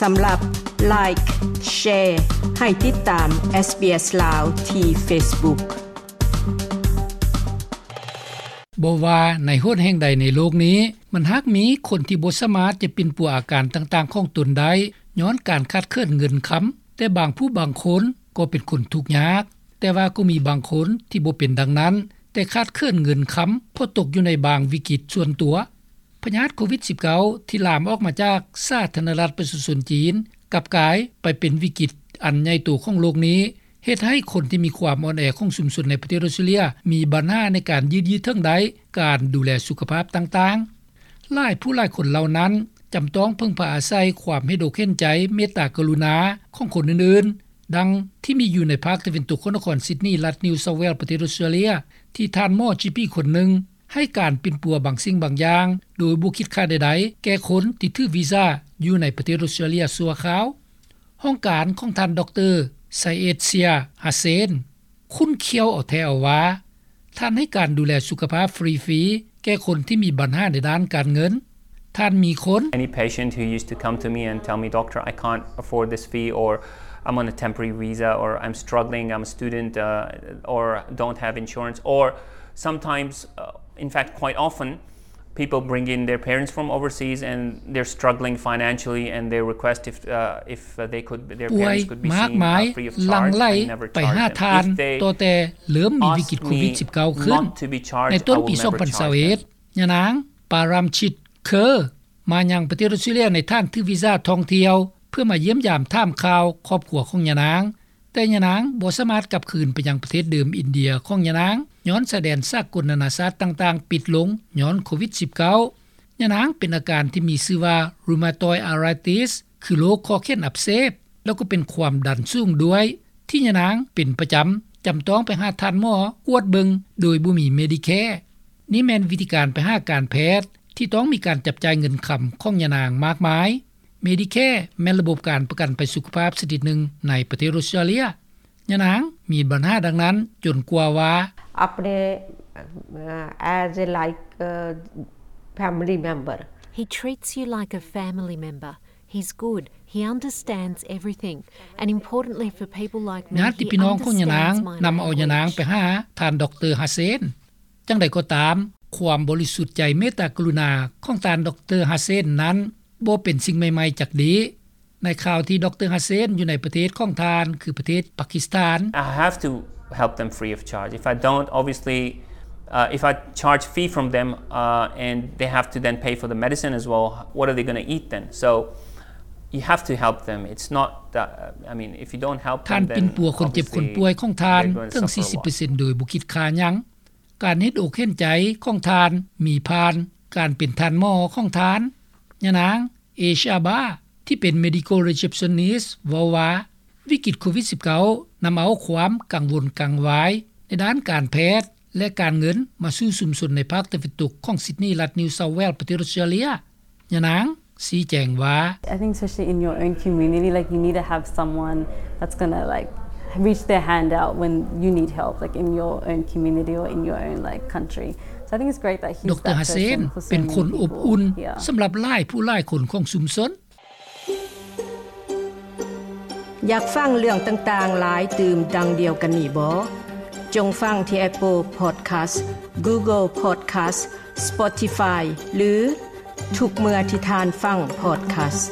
ສຳລັບ Like, Share ໃຫ້ຕິດຕາມ SBS ລາວ ທີ່ Facebook. ບໍ່ວ່າໃນຫົນແຫ່ງໃດໃນໂລກນີ້, ມັນຫາກມີຄົນທີ່ບໍ່ສາມາດຈະປິ່ນປົວອາການຕ່າງໆຂອງຕົນໄດ້ ຍ້ອນການຂາດເຂີນເງິນຄຳ, ແຕ່ບາງຜູ້ບາງຄົນກໍເປັນຄົນທຸກຍາກ. ແຕ່ວ່າກໍມີບາງຄົນທີ່ບໍ່ເປັນດັ່ງນັ້ນ, ແຕ່ຂາດເຂີນເງິນຄຳ ເພາະຕົກຢູ່ໃນບາງວິກິດສ່ວນຕົວ. ພະຍາດໂຄວິດສິບເກົ້າ ທີ່ລາມອອກມາຈາກສາທາລະນະລັດປະຊາຊົນຈີນ ກັບກາຍໄປເປັນວິກິດອັນໃຫຍ່ໂຕຂອງໂລກນີ້, ເຮັດໃຫ້ຄົນທີ່ມີຄວາມອ່ອນແອຂອງຊຸມຊົນໃນປະເທດອອສເຕຣເລຍ ມີບັນຫາໃນການຍືດເຖິງໄດ້ການດູແລສຸຂະພາບຕ່າງໆ. ຫຼາຍຜູ້ຫຼາຍຄົນເຫຼົ່ານັ້ນ ຈຳຕ້ອງເພິ່ງພາອາໄສຄວາມເຫັນອົກເຫັນໃຈ, ເມດຕາກະລຸນາຂອງຄົນອື່ນໆ, ດັ່ງທີ່ມີຢູ່ໃນພາກຕາເວັນຕົກຂອງນະຄອນຊິດນີ ລັດນິວເຊົາແວລ ປະເທດອອສເຕຣເລຍ ທີ່ທ່ານໝໍຈີປີຄົນໜຶ່ງ ໃຫ້ການປິ່ນປົວບາງສິ່ງບາງຢ່າງ ໂດຍບໍ່ຄິດຄ່າໃດໆ ແກ່ຄົນທີ່ຖືວີຊາຢູ່ໃນປະເທດອອສເຕຣເລຍຊົ່ວຄາວ. ຫ້ອງການຂອງທ່ານ ດຣ ໄຊເອດເຊຍ ຮາເຊນ ຂຸ້ນຂ້ຽວເອົາແທ້ເອົາວ່າ ທ່ານໃຫ້ການດູແລສຸຂະພາບຟຣີໆ ແກ່ຄົນທີ່ມີບັນຫາໃນດ້ານການເງິນ. ທ່ານມີຄົນ Any patient who used to come to me and tell me, "Doctor, I can't afford this fee," or, "I'm on a temporary visa," or, "I'm struggling, I'm a student, uh, or don't have insurance," or sometimes, uh, in fact, quite often, people bring in their parents from overseas and they're struggling financially and they request if, uh, if, uh, they could, their parents could be seen, uh, free of charge. I never charge them. If they ask me not to be charged, I will never charge them. ປວຍມາກມາຍ ຫຼັ່ງໄຫຼໄປຫາທ່ານ ຕັ້ງແຕ່ເລີ່ມມີວິກິດໂຄວິດສິບເກົ້າຂຶ້ນ. ໃນຕົ້ນປີສອງພັນຊາວເອັດ ຍານາງ ປາຣາມຊິດ ເຄີ ມາຍັງປະເທດອອສເຕຣເລຍໃນຖານຖືວີຊາທ່ອງທ່ຽວ ເພື່ອມາຢ້ຽມຢາມຖາມຂ່າວຄອບຄົວຂອງຍານາງ, ແຕ່ຍານາງບໍ່ສາມາດກັບຄືນໄປຍັງປະເທດເດີມອິນເດຍຂອງຍານາງ ຍ້ອນຊາຍແດນສາກົນນານາຊາດຕ່າງໆປິດລົງຍ້ອນໂຄວິດສິບເກົ້າ. ຍານາງເປັນອາການທີ່ມີຊື່ວ່າ rheumatoid arthritis ຄືໂລກຂໍ້ແຂນອັກເສບ ແລ້ວກໍເປັນຄວາມດັນສູງດ້ວຍ ທີ່ຍານາງເປັນປະຈຳ, ຈຳຕ້ອງໄປຫາທ່ານໝໍກວດເບິ່ງໂດຍບໍ່ມີ Medicare. ນີ້ແມ່ນວິທີການໄປຫາການແພດທີ່ຕ້ອງມີການຈັບຈ່າຍເງິນຄຳຂອງຍານາງມາກມາຍ. Medicare ແມ່ນລະບົບການປະກັນໄພສຸຂະພາບຊະນິດໜຶ່ງໃນປະເທດອອສເຕຣເລຍ. ຍານາງມີບັນຫາດັ່ງນັ້ນຈົນກວ່າວ່າ अपने, अ, as a, like, a, family member. He treats you like a family member. He's good. He understands everything. And importantly for people like me, ຍາດຕິພີ່ນ້ອງຂອງຍານາງນຳເອົາຍານາງໄປຫາທ່ານ ດຣ ຮາເຊນ. ຈັ່ງໃດກໍຕາມ, ຄວາມບໍລິສຸດໃຈເມດຕາກະລຸນາຂອງທ່ານ ດຣ ຮາເຊນນັ້ນ ບໍ່ເປັນສິ່ງໃໝ່ໆຈັກດີ້. ໃນຄາວທີ່ ດຣ ຮາເຊນ ຢູ່ໃນປະເທດຂອງທ່ານ ຄືປະເທດປາກິສຖານ. I have to help them free of charge. If I don't, obviously, uh, if I charge fee from them, uh, and they have to then pay for the medicine as well, what are they gonna eat then? So you have to help them. It's not that, uh, I mean, if you don't help them, then obviously they're gonna suffer a lot. ທ່ານປິ່ນປົວຄົນເຈັບຄົນປ່ວຍຂອງທ່ານເຖິງສີ່ສິບເປີເຊັນໂດຍບໍ່ຄິດຄ່າຫຍັງ. ການເຫັນອົກເຫັນໃຈຂອງທ່ານມີຜ່ານການເປັນທ່ານໝໍຂອງທ່ານ. ຍານາງ ເອຊາບາ ທີ່ເປັນ Medical Receptionist ເວົ້າວ່າ ວິກິດໂຄວິດສິບເກົ້າ ນຳເອົາຄວາມກັງວົນກັງວາຍໃນດ້ານການແພດ ແລະ ການເງິນມາສູ່ຊຸມຊົນໃນພາກຕາເວັນຕົກຂອງຊິດນີ ລັດນິວເຊົາແວລ ປະເທດອອສເຕຣເລຍ. ຍານາງຊີ້ແຈງວ່າ I think especially in your own community, like, you need to have someone that's gonna, like, reach their hand out when you need help, like, in your own community or in your own, like, country. So I think it's great that he's that person for so many people. ດຣ ฮາເຊນ ເປັນຄົນອົບອຸ່ນ yeah. ສຳລັບຫຼາຍຜູ້ຫຼາຍຄົນຂອງຊຸມຊົນ. ຢາກຟັງເລື່ອງຕ່າງໆຫຼາຍຕື່ມດັ່ງດຽວກັນນີ້ບໍ່? ຈົ່ງຟັງທີ່ Apple Podcast, Google Podcast, Spotify ຫຼື ທຸກເມື່ອທີ່ທ່ານຟັງ podcast.